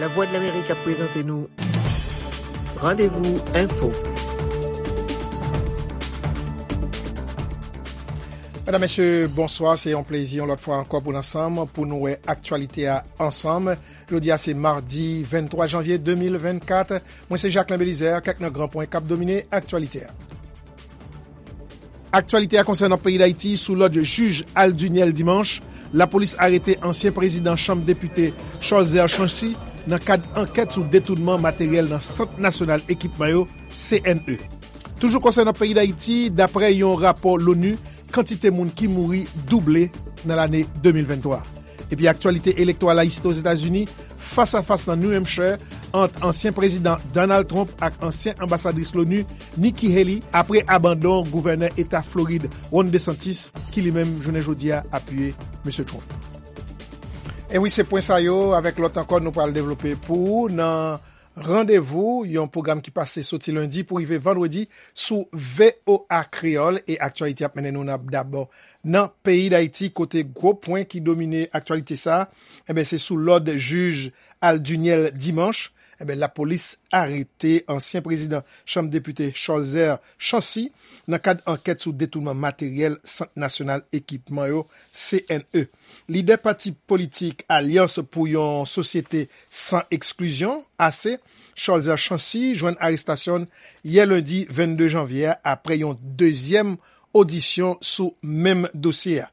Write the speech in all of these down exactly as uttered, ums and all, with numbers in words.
Lavwadlamerik ap prezante nou Randevou Enfo. Medam, mesye, bonswa. Se yon plezi, yon lòt fwa ankò, pou n ansanm, pou nou wè aktyalite a ansanm. Jodi a, se madi venntwa janvye de mil vennkat. Mwen, se Jacquelin Belizaire. Kèk nan gran pwen k ap domine aktyalite a. Aktyalite a konsènan peyi Dayiti. Sou lòd jij Alduniel Dimanche, lapolis arete ansyen prezidan Chanm Depite Cholzer Chancy nan kad ankèt sou detounman materyèl nan Sant Nasyonal Ekipman yo, C N E. Toujou konsènan peyi Dayiti, daprè yon rapò l'ONU, kantite moun ki mouri double nan lane de mil venntwa. Epi aktyalite elektoral la isit Ozetazini, fas a fas nan New Hampshire ant ansyen prezidan Donald Trump ak ansyen anbasadris l'ONU Nikki Haley apre abandon gouvènè eta Florid Ron DeSantis, ki li menm jounen jodi a apiye mesye Trump. E wi, se pwen sa yo, avèk lòt ankò, nou pral devlope pou ou nan Randevou, yon pwogram ki pase soti lendi pou rive vandredi sou V O A Kreyòl. E aktyalite ap mennen nou nan, dabò nan peyi Dayiti, kote gwo pwen ki domine aktyalite sa a, enben, se sou lòd jij Alduniel Dimanche, enben, lapolis arete ansyen prezidan Chanm Depite Cholzer Chancy nan kad ankèt sou detounman materyèl Sant Nasyonal Ekipman yo, C N E. Lidè pati politik Alyans pou yon Sosyete San Eksklizyon, A C, Cholzer Chancy, jwenn arestasyon l yè lendi vennde janvye a, apre yon dezyèm odisyon sou menm dosye a.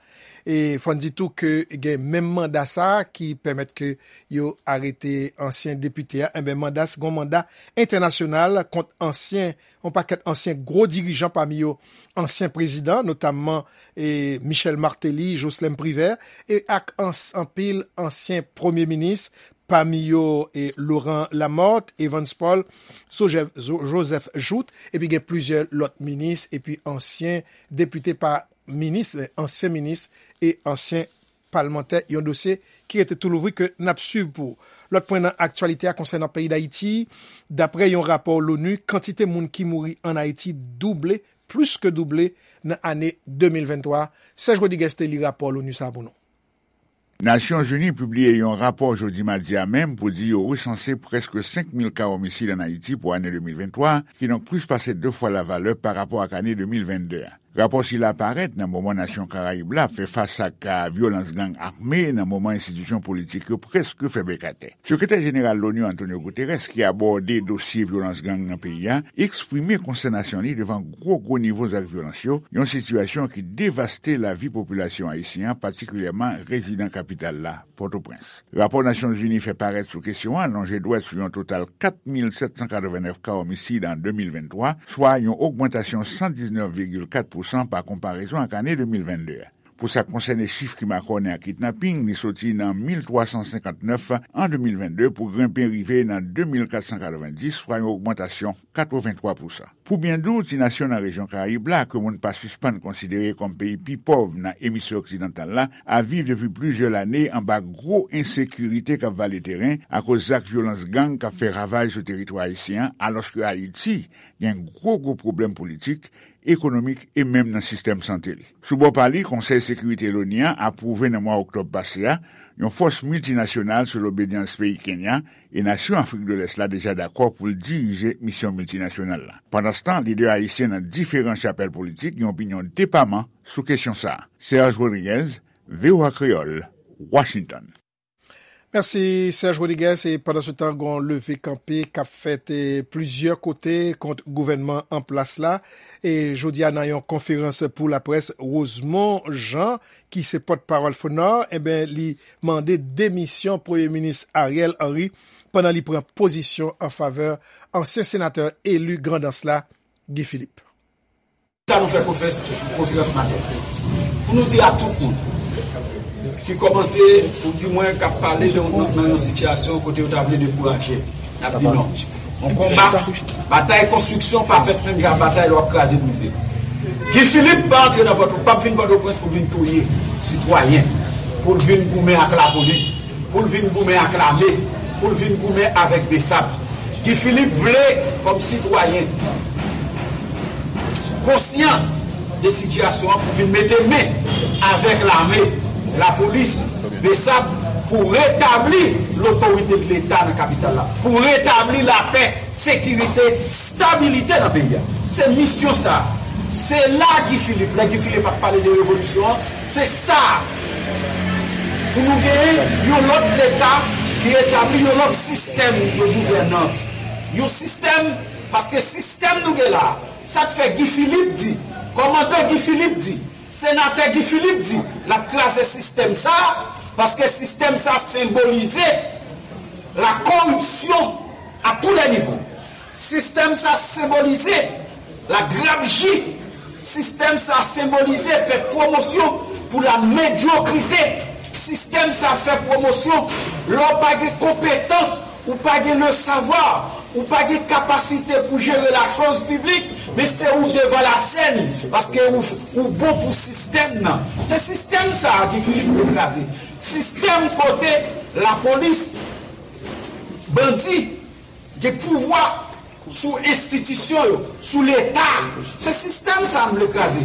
E fò n di tou ke gen menm manda sa a ki pèmèt ke yo arete ansyen depite a. Enben, manda, se yon manda entènasyonal kont ansyen, yon pakèt ansyen gwo dirijan, pami yo ansyen prezidan, notamman, e, Michel Martelly, Jocelerme Privert, e ak ans-, anpil ansyen premye minis, pami yo, e, Laurent Lamothe, Evans Paul, Joseph, Jo-, Joseph Jouthe, epi gen plizyè lòt minis, epi ansyen depite, pa minis, men ansyen minis e ansyen palmantè, yon dosye ki rete tou louvri ke n ap swiv pou ou. Lòt pwen nan aktyalite a konsènan peyi Dayiti, daprè yon rapò l'ONU, kantite moun ki mouri ann Ayiti double, plis ke double, nan ane de mil venntwa. Serge Rodriguez te li rapò l'ONU sa a pou nou. Nasyonzini pibliye yon rapò jodi madi a menm pou di yo resanse prèske senk mil ka omisid ann Ayiti pou ane de mil venntwa, kidonk plis pase de fwa lavalè pa rapò ak ane de mil vennde a. Rapò sila parèt nan moman nasyon Karayib la ap fè fas ak ka vyolans gang ame, nan moman enstitisyon politik yo prèske fè bèk atè. Sekretè jeneral l'ONU Antonio Guterres, ki abòde dosye vyolans gang nan peyi a, eksprime konstènasyon li devan gwo gwo nivo zak vyolans yo, yon sitiyasyon ki devaste lavi popilasyon ayisyen an, patikilyèman rezidan kapital la, Pòtoprens. Rapò Nasyonzini fè parèt sou kesyon an lonje dwèt sou yon total kat mil sèt san katrevenèf ka omisid an de mil venntwa, swa yon ogmantasyon san diznèf vigil kat pousan pa konparezon ak ane de mil vennde a. Pou sa k konsène chif ki makònen ak kidnaping, li soti nan mil twa san senkannnèf an de mil vennde pou grenpe rive nan de mil kat san katrevendis, swa yon ogmantasyon katreventwa pousan. Pou byen di w, ti nasyon nan rejyon Karayib la, ke moun pa sispann konsidere kòm peyi pi pòv nan emisfè oksidantal la, ap viv depi plizyè lane anba gwo ensekirite k ap vale teren akoz zak vyolans gang k ap fè ravaj sou teritwa ayisyen an, alòske Ayiti gen gwo gwo pwoblèm politik, ekonomik e menm nan sistèm sante li. Sou bò pa li, Konsèy Sekirite l'ONU an apwouve nan mwa oktòb pase a yon fòs miltinasyonal sou lobedyans peyi Kenya, e nasyon Afrik de Lès la deja dakò pou l dirije misyon miltinasyonal la. Pandanstan, lidè ayisyen nan diferan chapèl politik gen opinyon depaman sou kesyon sa a. Serge Rodriguez, V O A Kreyòl, Washington. Mèsi, Serge Rodriguez. E pandansetan, gen yon leve kanpe k ap fèt, e, plizyè kote kont gouvènman an plas la. E jodi a, nan yon konferans pou laprès, Rosemond Jean, ki se pòtpawòl FONOR, enben, li mande demisyon Premye Minis Ariel Henry pandan li pran pozisyon an favè ansyen senatè eli Grandans la, Guy Philippe. Sa nou fè konferans, konferans maten pou nou di a tout moun ki kòmanse, ou di mwen k ap pale de, nan, nan yon sitiyasyon kote yo ta vle dekouraje, n ap di non. Yon konba, batay konstriksyon pa fèt menm jan ak batay lè w ap kraze brize. Guy Philippe pa antre nan Pòto, p ap vin Pòtoprens pou vin touye sitwayen, pou l vin goumen ak lapolis, pou l vin goumen ak lame, pou l vin goumen avèk BSAP. Guy Philippe vle, kòm sitwayen konsyan de sitiyasyon an, pou vin mete men avèk lame, lapolis, BSAP, Pou retabli lotorite de Leta nan kapital la, pou retabli lapè, sekirite, stabilite nan peyi a. Se misyon sa. Se la Guy Philippe, lè Guy Philippe ap pale de revolisyon an, se sa. Pou nou genyen yon lòt Leta ki etabli yon lòt sistèm de gouvènans. Yon sistèm, paske sistèm nou gen la, sa k fè Guy Philippe di, kòmandan Guy Philippe di, Senatè Guy Philippe di l ap kraze sistèm sa a, paske sistèm sa a senbolize la corruption à tous les niveaux. Sistèm sa a senbolize la grabji. Sistèm sa a senbolize fè pwomosyon pou la medyokrite. Sistèm sa a fè pwomosyon lè w pa gen konpetans, ou pa gen le savoir, ou pa gen kapasite pou jere la chose publique, men se ou devan la scène, paske ou, ou bon pou sistèm nan. Se sistèm sa a Guy Philippe vle kraze. Sistèm kote lapolis, bandi, gen pouvwa sou enstitisyon yo, sou Leta. Se sistèm sa a m vle kraze.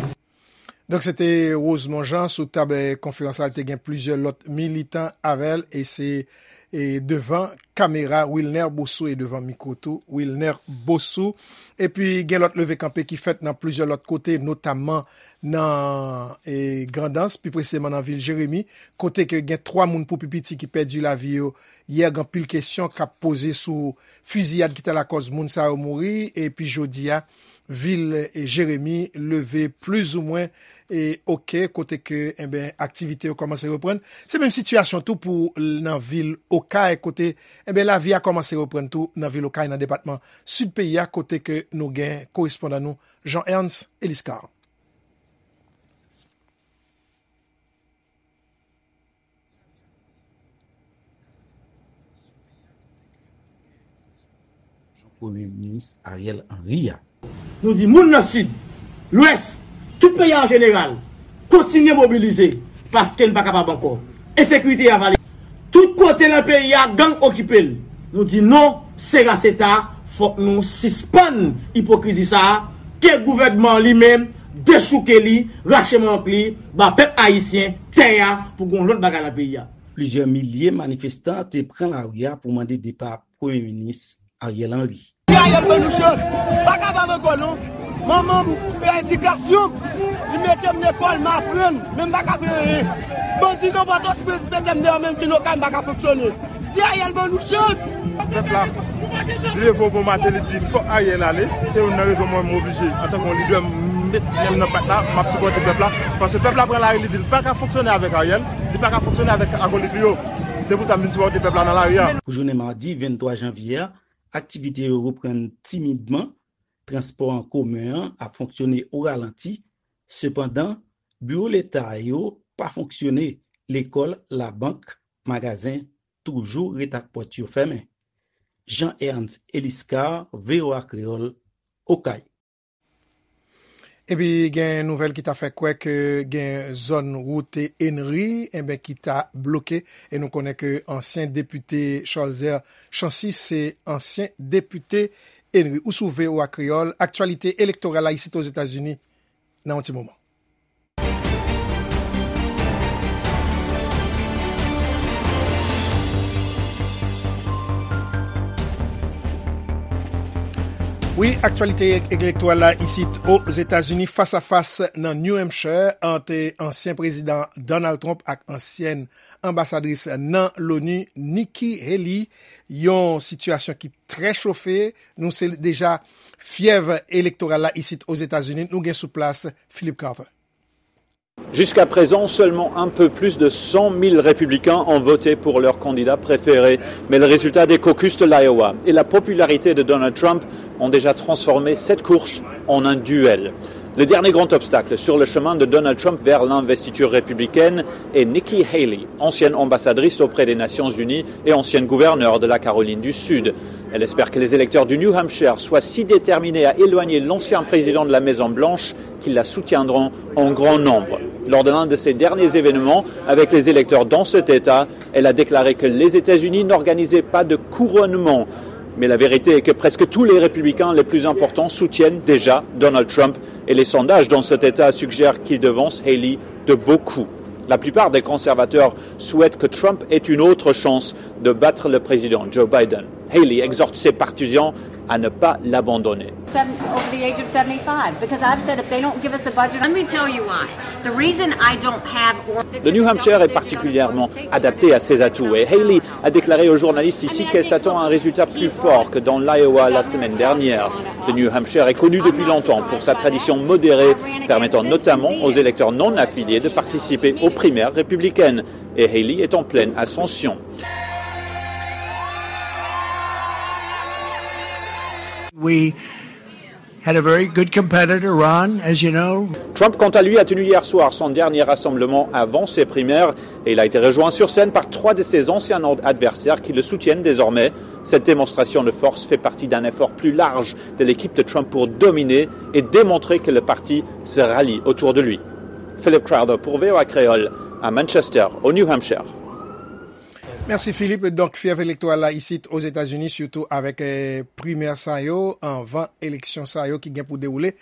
Donk, se te Rosemond Jean sou tab, eh, konferans la. Li te gen plizyè lòt militan avè l, e se, eh, devan kamera Wilner Bosso e devan mikwo tou Wilner Bosso. Epi, gen lòt leve kanpe ki fèt nan plizyè lòt kote, notamman nan, eh, Grandans, pi presizeman nan vil Jeremi, kote ke gen twa moun pou pi piti ki pèdi lavi yo yè. Gen anpil kesyon k ap poze sou fiziyad ki te lakòz moun sa yo mouri, epi jodi a, vil, eh, Jeremi leve plizoumwen, eh, oke, kote ke, enben, aktivite yo kòmanse reprann. Se menm sitiyasyon tou pou l-, nan vil Okay, kote, enben, lavi a kòmanse reprann tou nan vil Okay, nan depatman sid peyi a, kote ke nou gen korespondan nou, Jean Ernst Eliscar. Premye Minis Ariel Henry a. Nou di moun nan Sid, Lwès, tout peyi a an jeneral, kontinye mobilize, paske n pa kapab ankò. Ensekirite a vale. Tout kote nan peyi a, gang okipe l. Nou di non, se raseta, fòk nou sispann ipokrizi sa a, ke gouvènman an li menm dechouke li, rache mank li, ba pèp ayisyen tè a pou gon lòt bagay nan peyi a. Plizyè milye manifestan te pran lari a pou mande depa Premye Minis Ariel Henry. Ti Ariel ban nou chans. Pa kapab ankò non. Manman m fè edikasyon m. Li mete m lekòl, m aprann. Men m pa ka fè anyen. Bandi nan Pòtoprens mete m deyò, menm vin Okay m pa ka fonksyone. Ti Ariel ban nou chans. Pèp la leve yon bon maten, li di fòk Ariel ale. Se youn nan rezon mwen m oblije, antanke yon lidè, m met men m nan pat la, m ap sipòte pèp la. Paske pèp la pran lari, li di l pa ka fonksyone avèk Ariel, li pa ka fonksyone avèk akolit li yo. Se pou sa m vin sipòte pèp la nan lari a. Pou jounen madi venntwa janvye a, aktivite yo reprann timidman, transpò an komen an ap fonksyone o ralanti. Sepandan, biwo Leta yo pa fonksyone, lekòl, labank, magazen toujou ret ak pòt yo fèmen. Jean Ernst Eliscar, V O A Kreyòl, Okay. Epi gen nouvèl ki ta fè kwè ke gen zòn wout Henry, enben, ki ta bloke, e nou konnen ke ansyen depite Cholzer Chancy se ansyen depite Henry. Ou sou V O A Kreyòl, aktyalite elektoral la isit Ozetazini nan yon ti moman. Wi, aktyalite elektoral la isit Ozetazini, fas a fas nan New Hampshire ant ansyen prezidan Donald Trump ak ansyèn anbasadris nan Loni, Nikki Haley. Yon sitiyasyon ki trè chofe. Nou se deja fyèv elektoral la isit Ozetazini. Nou gen sou plas Philip Carter. Jusqu'à présent, seulement un peu plus de cent mille républicains ont voté pour leur candidat préféré, mais le résultat des caucus de l'Iowa et la popularité de Donald Trump ont déjà transformé cette course en un duel. Le dernier grand obstacle sur le chemin de Donald Trump vers l'investiture républicaine est Nikki Haley, ancienne ambassadrice auprès des Nations Unies et ancienne gouverneure de la Caroline du Sud. Elle espère que les électeurs du New Hampshire soient si déterminés à éloigner l'ancien président de la Maison Blanche qu'ils la soutiendront en grand nombre. Lors de l'un de ses derniers événements avec les électeurs dans cet État, elle a déclaré que les États-Unis n'organisaient pas de couronnement. Mais la vérité est que presque tous les républicains les plus importants soutiennent déjà Donald Trump et les sondages dans cet État suggèrent qu'il devance Haley de beaucoup. La plupart des conservateurs souhaitent que Trump ait une autre chance de battre le président Joe Biden. Haley exhorte ses partisans à ne pas l'abandonner. Seven, over the age of seventy-five, because I've said if they don't give us a budget, let me tell you why. The reason I don't have or- Le New Hampshire est particulièrement adapté à ses atouts et Haley a déclaré aux journalistes ici qu'elle s'attend à un résultat plus fort que dans l'Iowa la semaine dernière. Le New Hampshire est connu depuis longtemps pour sa tradition modérée, permettant notamment aux électeurs non affiliés de participer aux primaires républicaines. Et Haley est en pleine ascension. We had a very good competitor, Ron, as you know. Trump, quant à lui, a tenu hier soir son dernier rassemblement avant ses primaires et il a été rejoint sur scène par trois de ses anciens adversaires qui le soutiennent désormais. Cette démonstration de force fait partie d'un effort plus large de l'équipe de Trump pour dominer et démontrer que le parti se rallie autour de lui. Philip Crowther pour V O A Créole à Manchester, au New Hampshire. Mèsi Philippe. Donk, fyèv elektoral la isit Ozetazini, sitou avèk eh, primè sa yo, anvan eleksyon sa yo ki gen pou dewoule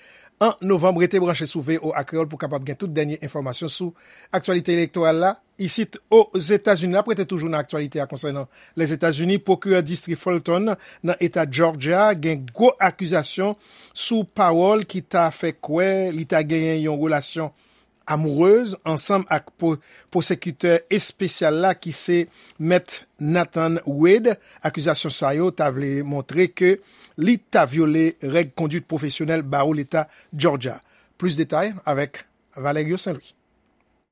an novanm. Rete branche sou V O A Kreyòl pou kapab gen tout dènye enfòmasyon sou aktyalite elektoral la isit Ozetazini. N ap rete toujou nan aktyalite a konsènan Lèzetazini. Pwokirè distri Fulton nan eta Georgia gen gwo akizasyon sou pawòl ki ta fè kwè li ta genyen yon relasyon amourez ansanm ak pwosekitè espesyal la ki se Mèt Nathan Wade. Akizasyon sa yo ta vle montre ke li ta vyole règ konduit pwofesyonèl bawo Leta Georgia. Plis detay avèk Valerio Saint Louis.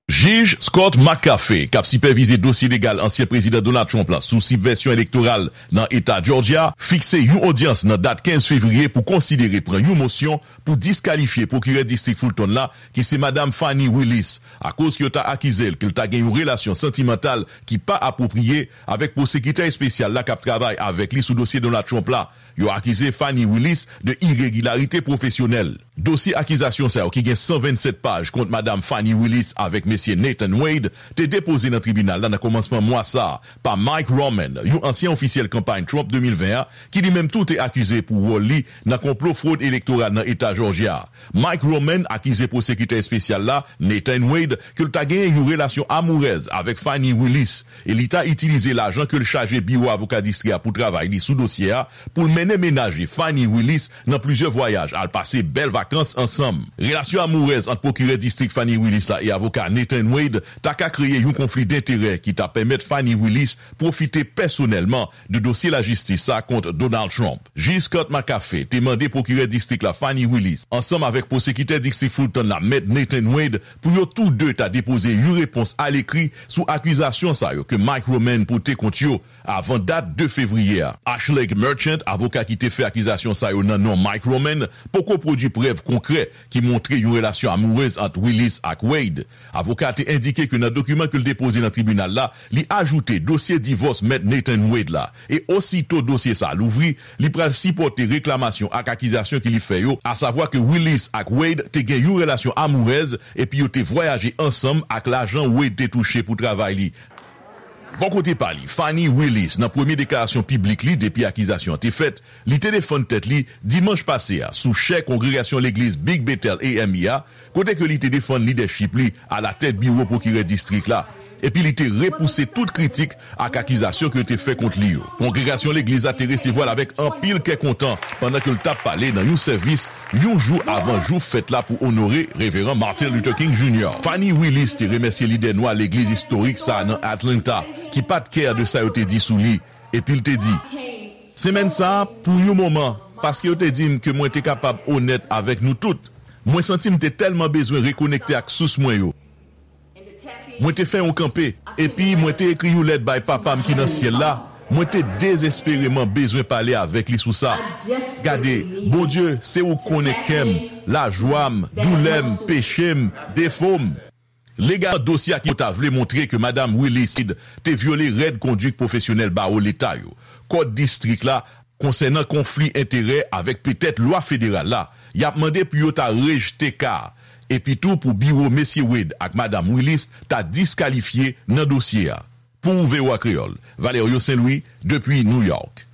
Jij Scott McAfee, k ap sipèvize dosye legal ansyen Prezidan Donald Trump la sou sibvèsyon elektoral nan eta Georgia, fikse yon odyans nan dat kenz fevriye pou konsidere pran yon mosyon pou diskalifye pwokirè distrik Fulton la, ki se Madam Fani Willis, akoz ke yo ta akize l ke l ta gen yon relasyon santimantal ki pa apwopriye avèk pwosekitè espesyal la k ap travay avèk li sou dosye Donald Trump la. Yo akize Fani Willis de iregilarite pwofesyonèl. Dosye akizasyon sa yo ki gen san vennsèt paj kont Madam Fani Willis avèk Mesye Nathan Wade te depoze nan tribinal la nan kòmansman mwa sa a pa Mike Roman, yon ansyen ofisyèl kanpay Trump de mil ven an, ki li menm tou te akize pou wòl li nan konplo fwod elektoral nan eta Jòjya a. Mike Roman akize pwosekitè espesyal la, Nathan Wade, ke l ta genyen yon relasyon amourèz avèk Fani Willis, e li ta itilize lajan ke l chaje biwo avoka distri a pou travay li sou dosye a pou l mennen mennaj li, Fani Willis, nan plizyè vwayaj al pase bèl vakans ansanm. Relasyon amourèz ant pwokirè distrik Fani Willis la e avoka Nathan Wade ta ka kreye yon konfli denterè ki ta pèmèt Fani Willis pwofite pèsonèlman de dosye lajistis sa kont Donald Trump. Jij Scott McAfee te mande pwokirè distrik la Fani Willis, ansanm avèk pwosekitè distrik Fulton la Mèt Nathan Wade, pou yo tou de ta depoze yon repons alekri sou akizasyon sa yo ke Mike Roman pote kont yo avan dat de fevriye a. Ashley Merchant, avoka ki te fè akizasyon sa yo nan non Mike Roman, poko pwodui prèv konkrè ki montre yon relasyon amourèz ant Willis ak Wade. Avoka a te endike ke nan dokiman ke l depoze nan tribinal la, li ajoute dosye divòs Mèt Nathan Wade la, e osito dosye sa a louvri, li pral sipòte reklamasyon ak akizasyon ke li fè yo, asavwa ke Willis ak Wade te gen yon relasyon amourèz epi yo te vwayaje ansanm ak lajan Wade te touche pou travay li. Bò kote pa li, Fani Willis, nan premye deklarasyon piblik li depi akizasyon an te fèt, li te defann tèt li dimanch pase a sou chè kongregasyon legliz Big Bethel A M E a, kote ke li te defann lidèchip li alatèt biwo pwokirè distrik la, epi li te repouse tout kritik ak akizasyon ke yo te fè kont li yo. Kongregasyon legliz la te resevwa l avèk anpil kè kontan pandan ke l t ap pale nan yon sèvis yon jou avan jou fèt la pou onore Reveran Martin Luther King Junior. Fani Willis te remèsye lidè nwa legliz istorik sa a nan Atlanta, ki pa t kè de sa yo te di sou li, epi l te di, Semèn sa a, pou yon moman, paske yo te di m ke mwen te kapab onèt avèk nou tout, mwen santi m te tèlman bezwen rekonekte ak sous mwen yo. Mwen te fè yon kanpe, epi mwen te ekri yon lèt bay Papa m ki nan syèl la. Mwen te dezespereman bezwen pale avèk li sou sa. Gade, Bondye, se ou k konnen kè m, lajwa m, doulè m, peche m, defo m. Legalman, dosye a ki yo ta vle montre ke Madam Willis te vyole règ konduit pwofesyonèl bawo leta yo, kòd distrik la, konsènan konfli enterè avèk petèt lwa federal la, y ap mande pou yo ta rejte ka a, epi tou pou biwo Mesye Wade ak Madam Willis ta diskalifye nan dosye a. Pou V O A Kreyòl, Valerio Saint Louis, depi New York.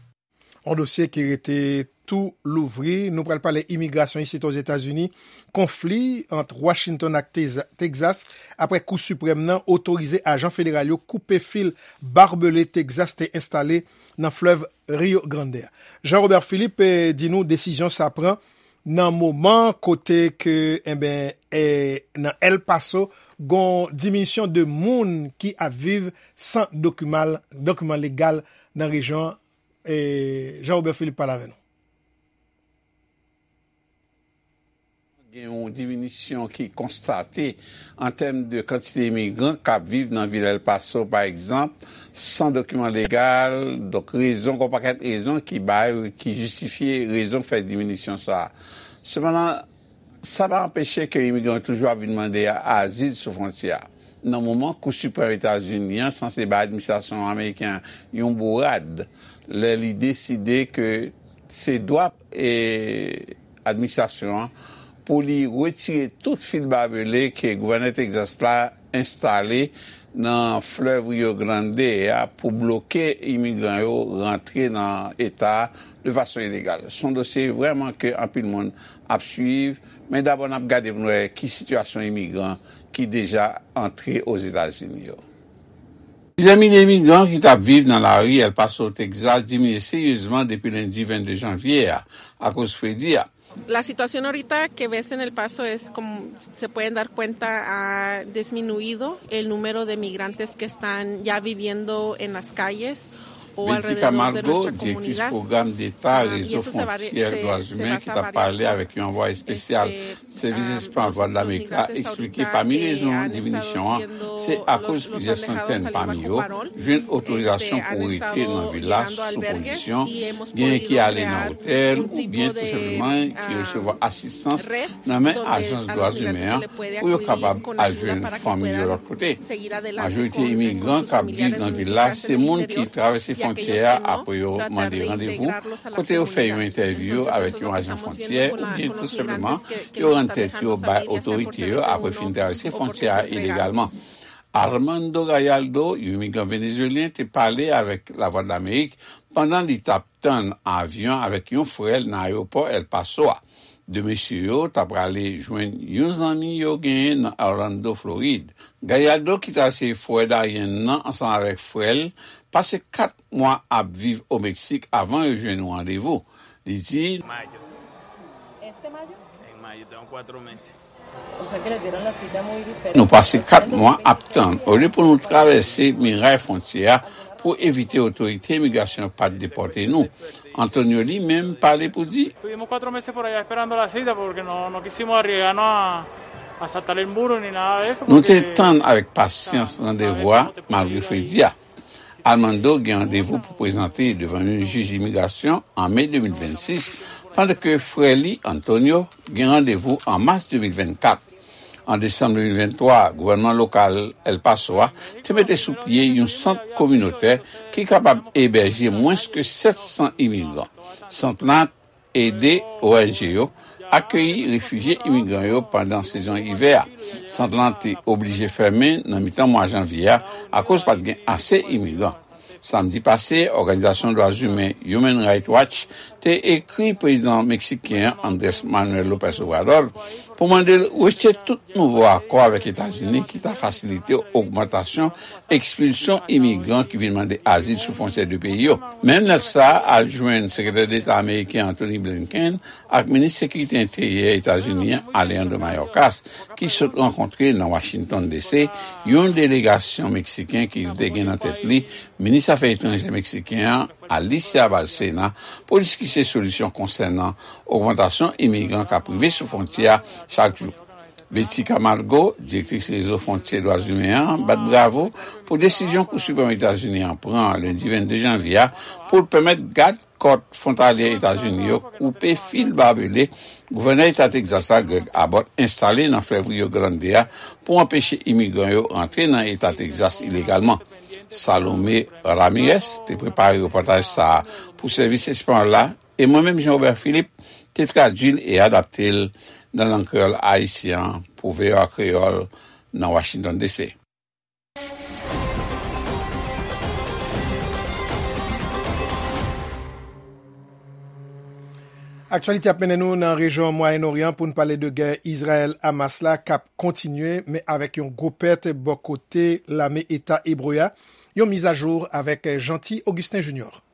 Yon dosye ki rete tou louvri. Nou pral pale imigrasyon isit Ozetazini. Konfli ant Washington ak Teza- Texas apre Kou Siprèm nan otorize ajan federal yo koupe fil babele Texas te enstale nan flèv Rio Grande a. Jean Robert Philippe, eh, di nou desizyon sa pran nan moman kote ke, enben, eh, nan El Paso, gon diminisyon de moun ki ap viv san dokiman, dokiman legal nan rejyon an. Eh, Jean Robert Philippe pale avè nou. Gen yon diminisyon ki konstate an tèm de kantite imigran k ap viv nan vil El Paso, pa egzanp, san dokiman legal. Donk, rezon, gon pakèt rezon ki bay, ki jistifye rezon k fè diminisyon sa a. Sepandan, sa pa anpeche ke imigran yo toujou ap vin mande azil sou fwontyè a. Nan moman Kou Siprèm Etazini an sanse bay administrasyon ameriken an yon bourad, lè li deside ke se dwa, e, administrasyon an pou li retire tout fil babele ke gouvènè Texas la enstale nan flèv Rio Grande a pou bloke imigran yo rantre nan eta a de fason ilegal. Se yon dosye vrèman ke anpil moun ap swiv, men dabò n ap gade pou n wè ki sitiyasyon imigran ki deja antre Ozetazini yo. Plizyè milye imigran ki t ap viv nan lari El Paso, Texas, diminye seryezman depi lendi vennde janvye a, akoz fredi a. La situación ahorita que ves en El Paso es como se pueden dar cuenta, ha disminuido el número de migrantes que están ya viviendo en las calles o Betty alrededor de Camargo, nuestra comunidad. Direktris pwogram Deta Rezo Fwontyè Dwa Imen, ki t ap pale avèk yon anvwaye espesyal Sèvis Espas Vwad Lamerik la, eksplike pami rezon diminisyon an, se akoz plizyè santèn pami yo jwenn otorizasyon pou rete nan vil la sou kondisyon, genyen ki ale nan otèl oubyen tou senpleman ki resevwa asistans nan men ajans dwa imen an pou yo kapab al jwenn fanmi yo lòt kote. Majorite imigran k ap viv nan vil la se moun ki travèse fwontyè a apre yo mande randevou, kote yo fè yon entèvyou avèk yon ajan fwontyè oubyen tou senpleman yo rann tèt yo bay otorite yo apre fin travèse fwontyè a ilegalman. Armando Gallardo, yon imigran venezuelyen, te pale avèk Lavwadlamerik pandan li t ap tann avyon avèk yon frè l nan ayewopò El Paso a. De mesye yo ta prale jwenn yon zanmi yo genyen nan Orlando, Florid. Gallardo, ki travèse frè Darien nan ansanm avèk frè l, pase kat mwa ap viv o Meksik avan yo jwenn yon randevou. Li di, Mayo. Este mayo? En mayo, tengo cuatro meses. O sea que le dieron la cita muy diferente. Nou pase kat mwa ap tann, olye pou nou travèse miray fwontyè a pou evite otorite imigrasyon pa t depòte nou. Antonio li menm pale pou di, Estuvimos cuatro meses por allá esperando la cita porque no, no quisimos arriesgarnos a, a saltar el muro ni nada de eso. Nou te tann avèk pasyans randevou a malgre fredi a. Armando gen randevou pou prezante devan yon jij imigrasyon an me de mil vennsis, pandan ke frè li, Antonio, gen randevou an mas de mil vennkat. An desanm de mil venntwa, gouvènman lokal El Paso a te mete sou pye yon sant kominotè ki kapab ebèje mwens ke sèt san imigran. Sant lan ede O N G yo akeyi refijye imigran yo pandan sezon ivè a. Sant lan te oblije fèmen nan mitan mwa janvye a akoz pa t gen ase imigran. Samdi pase, òganizasyon dwa imen Human Rights Watch te ekri prezidan meksiken an, Andrés Manuel López Obrador, pou mande l retire tout nouvo akò avèk Etazini ki ta fasilite ogmantasyon ekspilsyon imigran ki vin mande azil sou fwontyè de peyi yo. Menm lèt sa a al jwenn Sekretè Deta ameriken Antony Blinken ak Minis Sekirite Enteryè Etazini an, Alejandro Mayorkas, ki sot rankontre nan Washington D C yon delegasyon meksiken ki te gen nan tèt li Minis Afè Etranjè meksiken an, Alicia Bárcena, pou diskite solisyon konsènan ogmantasyon imigran k ap rive sou fwontyè a chak jou. Betty Camargo, direktris Rezo Fwontyè Dwa Imen an, bat bravo pou desizyon Kou Siprèm Etazini an pran lendi vennde janvye a pou l pèmèt gad kòt fwontalyè Etazini yo koupe fil babele gouvènè eta Tegzas la, Greg Abbott, enstale nan flèv Rio Grande a pou anpeche imigran yo rantre nan eta Tegzas ilegalman. Salomé Ramirez te prepare repòtaj sa a pou sèvis espanyòl la, e mwen menm, Jean Robert Philippe, te tradui l e adapte l nan lang kreyòl ayisyen an pou V O A Kreyòl nan Washington D C. Aktyalite ap mennen nou nan rejyon Mwayen Oryan pou n pale de gè Izrayèl-Hamas la k ap kontinye, men avèk yon gwo pèt bò kote lame Eta Ebre a. Yon mizajou avèk Jeanty Augustin Junior.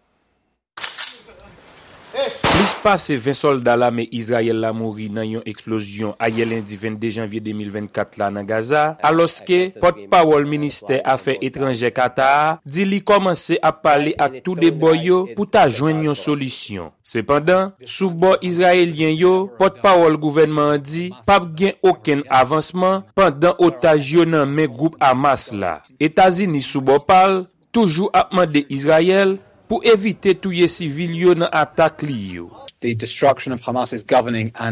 Plis pase ven sòlda lame Izrayèl la mouri nan yon eksplozyon ayè lendi vennde janvye de mil vennkat la nan Gaza, alòske pòtpawòl ministè afè etranjè Kata a di li kòmanse ap pale ak tou de bò yo pou ta jwenn yon solisyon. Sepandan, sou bò izrayelyen yo, pòtpawòl gouvènman an di p ap gen okenn avansman pandan otaj yo nan men gwoup Hamas la. Etazini, sou bò pa l, toujou ap mande Izrayèl pou evite touye sivil yo nan atak li yo.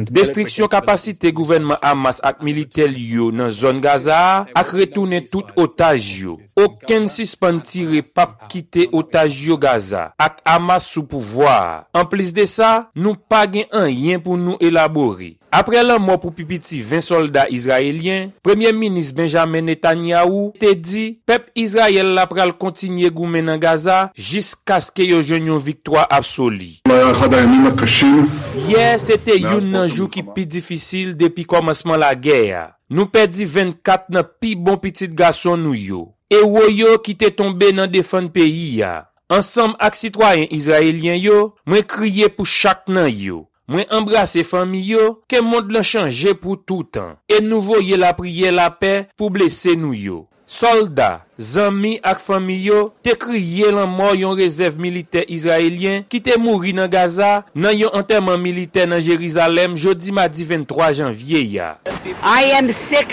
Destriksyon kapasite gouvènman Hamas ak militè li yo nan zòn Gaza a ak retounen tout otaj yo. Okenn sispann tire p ap kite otaj yo Gaza ak Hamas sou pouvwa a. Anplis de sa, nou pa gen anyen pou nou elabore. Apre lanmò pou pi piti ven sòlda izrayelyen, Premye Minis Benjamin Netanyahu te di pèp Izrayèl la pral kontinye goumen nan Gaza jiskaske yo jwenn yon viktwa absoli. Yè se te youn nan jou ki pi difisil depi kòmansman lagè a. Nou pèdi vennkat nan pi bon pitit gason nou yo, ewo yo ki te tonbe nan defann peyi a. Ansanm ak sitwayen izrayelyen yo, mwen kriye pou chak nan yo. Mwen anbrase fanmi yo, ke mond lan chanje pou toutan, e nou voye lapriyè lapè pou blese nou yo. Sòlda, zanmi ak fanmi yo te kriye lanmò yon rezèv militè izrayelyen ki te mouri nan Gaza nan yon antèman militè nan Jerizalèm jodi madi venntwa janvye a.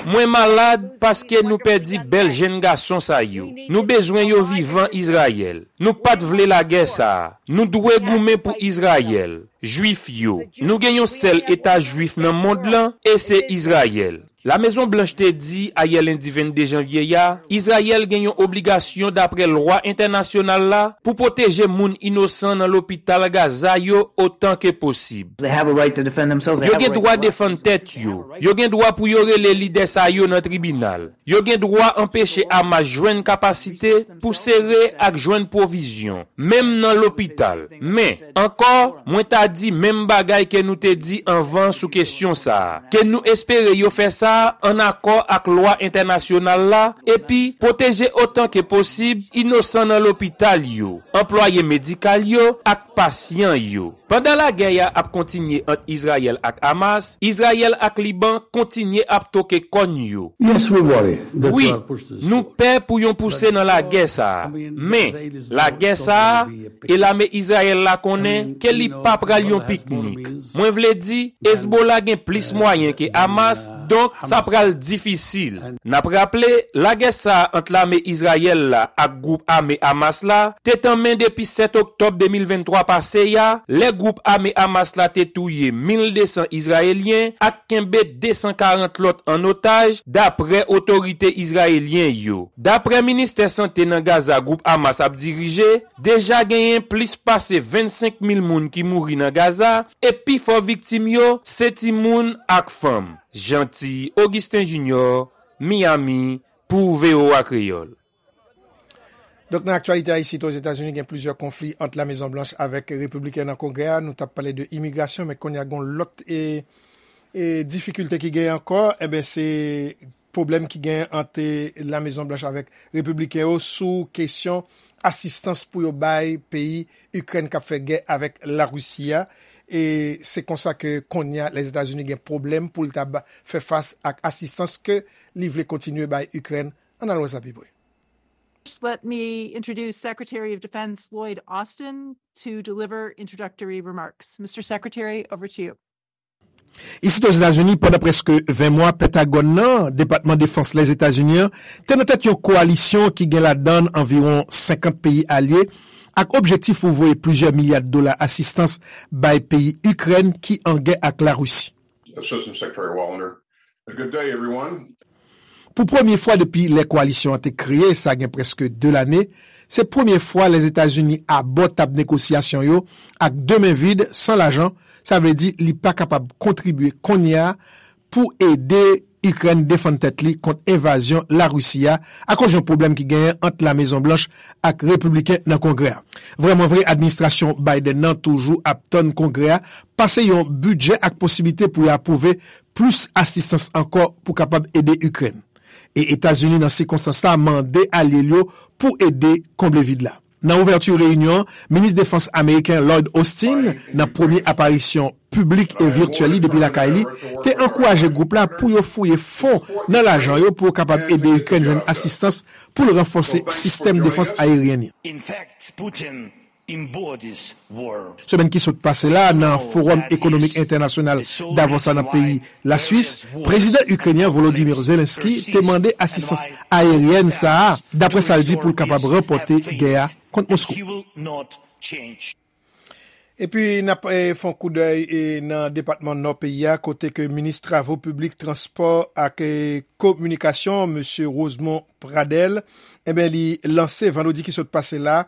Mwen malad paske nou pèdi bèl jenn gason sa yo. Nou bezwen yo vivan Izrayèl. Nou pa t vle lagè sa a. Nou dwe goumen pou Izrayèl, Jwif yo. Nou gen yon sèl Eta Jwif nan mond lan, e se Izrayèl. Lamezon Blanch te di ayè lendi vennde janvye a, Izrayèl gen yon obligasyon dapre lwa entènasyonal la pou pwoteje moun inosan nan lopital Gaza yo otan ke posib. Yo gen dwa defann tèt yo. Yo gen dwa pou yo rele lidè sa yo nan tribinal. Yo gen dwa anpeche Hamas jwenn kapasite pou sere ak jwenn pwovizyon, menm nan lopital. Men, ankò, mwen ta di menm bagay ke nou te di anvan sou kesyon sa a, ke nou espere yo fè sa a ann akò ak lwa entènasyonal la, epi pwoteje otan ke posib inosan nan lopital yo, anplwaye medikal yo ak pasyan yo. Pandan lagè a ap kontinye ant Izrayèl ak Hamas, Izrayèl ak Liban kontinye ap toke kòn yo. Wi, nou pè pou yon pouse nan lagè sa a. Men, lagè sa a, e lame Izrayèl la konnen ke li pa pral yon piknik. Mwen vle di, Hezbollah gen plis mwayen ke Hamas, donk sa pral difisil. N ap raple, lagè sa a ant lame Izrayèl la ak gwoup ame Hamas la te tanmen depi sèt oktòb de mil venntwa pase a, lè gwoup ame Hamas la te touye mil de san Izrayelyen ak kenbe de san karant lòt an otaj, dapre otorite izrayelyen yo. Dapre ministè sante nan Gaza gwoup Hamas ap dirije, deja genyen plis pase vennsenk mil moun ki mouri nan Gaza, e pifò viktim yo se timoun ak fanm. Jeanty Augustin Junior, Miami, pou V O A Kreyòl. Donk, nan aktyalite a, isit Ozetazini, gen plizyè konfli ant Lamezon Blanch avèk Repibliken nan Kongrè a. Nou t ap pale de imigrasyon, men kounye a, gen yon lòt e, e, difikilte ki genyen ankò. Enben, se pwoblèm ki genyen ant Lamezon Blanch avèk Repibliken yo sou kesyon asistans pou yo bay peyi Ikrèn k ap fè gè avèk Larisi a. E se konsa ke kounye a, Lèzetazini gen pwoblèm pou l ta ba, fè fas ak asistans ke li vle kontinye bay Ikrèn. Ann al wè sa pi pre. First, let me introduce Secretary of Defense Lloyd Austin to deliver introductory remarks. Mister Secretary, over to you. Isit Ozetazini, pandan prèske ven mwa, Pentagòn nan, Depatman Defans Lèzetazini an, te nan tèt yon kowalisyon ki gen ladan l anviwon senkant peyi alye, ak objektif pou voye plizyè milya dola asistans bay peyi Ikrèn ki an gè ak Larisi. Assistant Secretary Wallander. Good day, everyone. Pou premye fwa depi lè kowalisyon an te kreye, sa gen prèske de lane, se premye fwa Lèzetazini abò tab negosyasyon yo ak de men vid, san lajan, sa vle di li pa kapab kontribye kounye a pou ede Ikrèn defann tèt li kont envazyon Larisi a akoz yon pwoblèm ki genyen ant La Mezon Blanch ak repibliken nan Kongrè a. Vrèmanvre, administrasyon Biden nan toujou ap tann Kongrè a pase yon bidjè ak posiblite pou y apwouve plis asistans ankò pou kapab ede Ikrèn. E Etazini, nan sikonstans la, mande alye l yo pou ede konble vid la. Nan ouvèti reyinyon an, minis defans ameriken Lloyd Austin, nan premye aparisyon piblik e vityèl li depi lakay li, te ankouraje gwoup la pou yo fouye fon nan lajan yo pou yo kapab ede Ikrèn jwenn asistans pou l ranfòse sistèm defans ayeryèn li. Semèn ki sot pase la, nan Fowòm Ekonomik Entènasyonal Davos la nan peyi Laswis, prezidan ikrenyen Volodymyr Zelensky te mande asistans ayeryèn sa a, dapre sa l di, pou l kapab ranpòte gè a kont Moskou. Epi n ap eh, fè yon koudèy eh, nan depatman Nò peyi a, kote ke minis travo piblik, transpò ak eh, kominikasyon, mesye Rosemond Pradel, enben, li lanse vandredi ki sot pase la,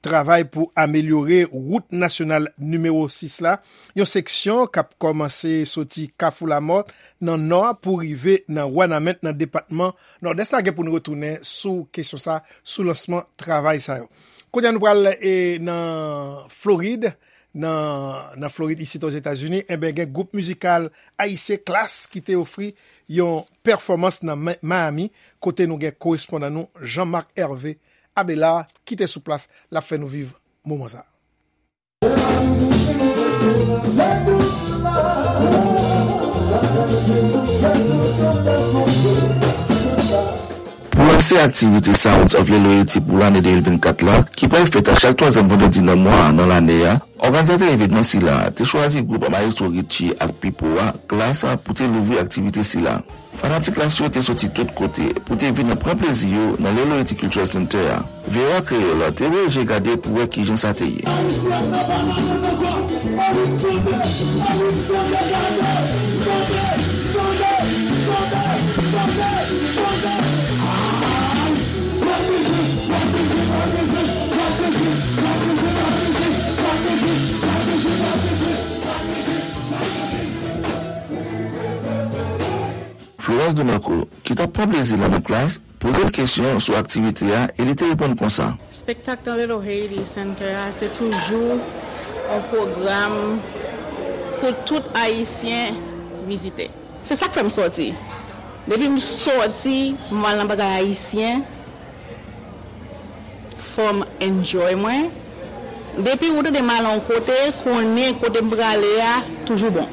travay pou amelyore wout nasyonal nimewo sis la, yon seksyon k ap kòmanse soti Kafou Lamòt nan nò a pou rive nan Wanament nan depatman Nòdès la. Gen pou n retounen sou kesyon sa, sou lansman travay sa yo. Kounye a nou pral eh, nan Florid, nan, nan Florid, isit Ozetazini, enben, gen gwoup mizikal ayisyen Klass ki te ofri yon pèfòmans nan Ma- Miami, kote nou gen korespondan nou Jean Marc Hervé Abelard ki te sou plas, l ap fè nou viv moman sa. Pou lanse aktivite Sounds of Lil Haiti pou lane de mil vennkat la, ki pral fèt a chak twazyèm vandredi nan mwa a nan lane a, òganizatè evènman sila a te chwazi gwoup Maestro Richie ak Pipo a, Klass, pou te louvri aktivite sila. Fanatik Klass yo te soti tout kote pou te vin pran plezi yo nan Lil Haiti Cultural Center a. V O A Kreyòl te voye je gade pou wè kijan sa te ye. Florence Demarco, ki t ap pran plezi l nan Klass, poze l kesyon sou aktivite a e li te reponn konsa. Espektak nan Little Haiti Center a se toujou yon pwogram pou tout Ayisyen vizite. Se sa k fè m sòti. Depi m sòti, m al nan bagay ayisyen, fò m enjoy mwen. Depi ou tande m al yon kote, konnen kote m prale a toujou bon.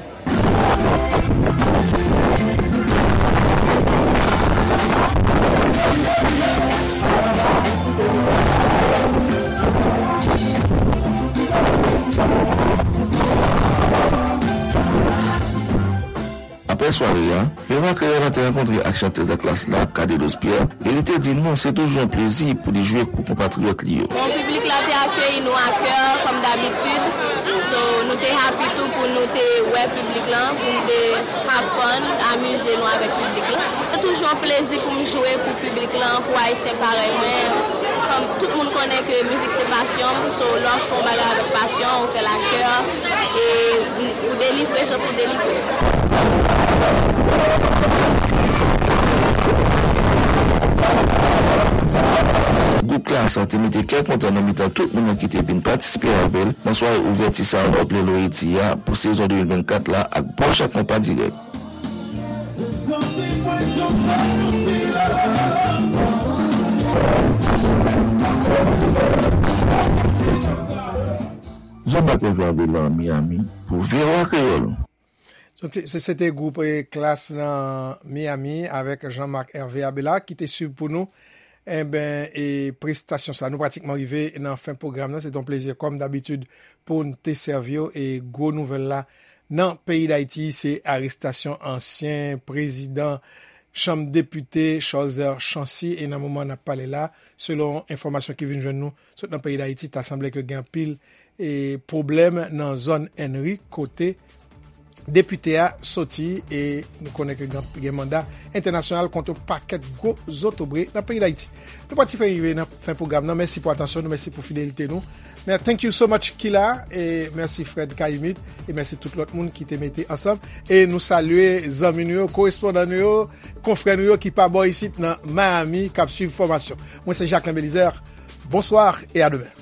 Apre sware a, Veva Kreyòl la te rankontre ak chantèz a Klass la, Cadelos Pierre, e li te di nou se toujou yon plezi pou li jwe pou konpatriyòt li yo. Bon, piblik la te akeyi nou ak kè, kòm dabitid. So, nou te happy tou pou nou te wè piblik lan, pou nou te have fun, amize nou avèk piblik lan. Se toujou yon plezi pou m jwe pou piblik lan, pou Ayisyen parèy mwen. Kòm tout moun konnen ke mizik se pasyon m, so lè w ap fè yon bagay avèk pasyon, ou fè l ak kè, e ou delivre jan pou delivre. Gwoup Klass te mete kè kontan nan mitan tout moun nan ki te vin patisipe avè l nan sware ouvèti Sounds of Lil Haiti a pou sezon de mil vennkat la ak bon jan konpa dirèk. Jean Marc Hervé Abelard, Miami, pou V O A Kreyòl. Donk, se- se- se te gwoup eh, Klass nan Miami avèk Jean Marc Hervé Abelard ki te swiv pou nou enben, e prestasyon sa. Nou pratikman rive nan fen pwogram nan. Se te yon plezi, kòm dabitid, pou n te sèvi w. E gwo nouvèl la nan peyi Dayiti, se arestasyon ansyen prezidan Chanm Depite, Cholzer Chancy. E nan moman n ap pale la, selon enfòmasyon ki vin jwenn nou sot nan peyi Dayiti, ta sanble ke gen anpil e pwoblèm nan zòn Ènri, kote depite a soti, e nou konnen ke gen, gen manda entènasyonal kont yon pakèt gwo zotobre nan peyi Dayiti. Nou pati fè rive nan fen pwogram nan. Mèsi pou atansyon nou, mèsi pou fidelite nou. Men thank you so much, Kila, e mèsi Fred Kayimit, e mèsi tout lòt moun ki te mete ansanm. E nou salye zanmi nou yo, korespondan nou yo, konfrè nou yo ki pa bò isit nan Miami, k ap swiv fòmasyon. Mwen se Jacquelin Belizaire. Bonsoir et à demain.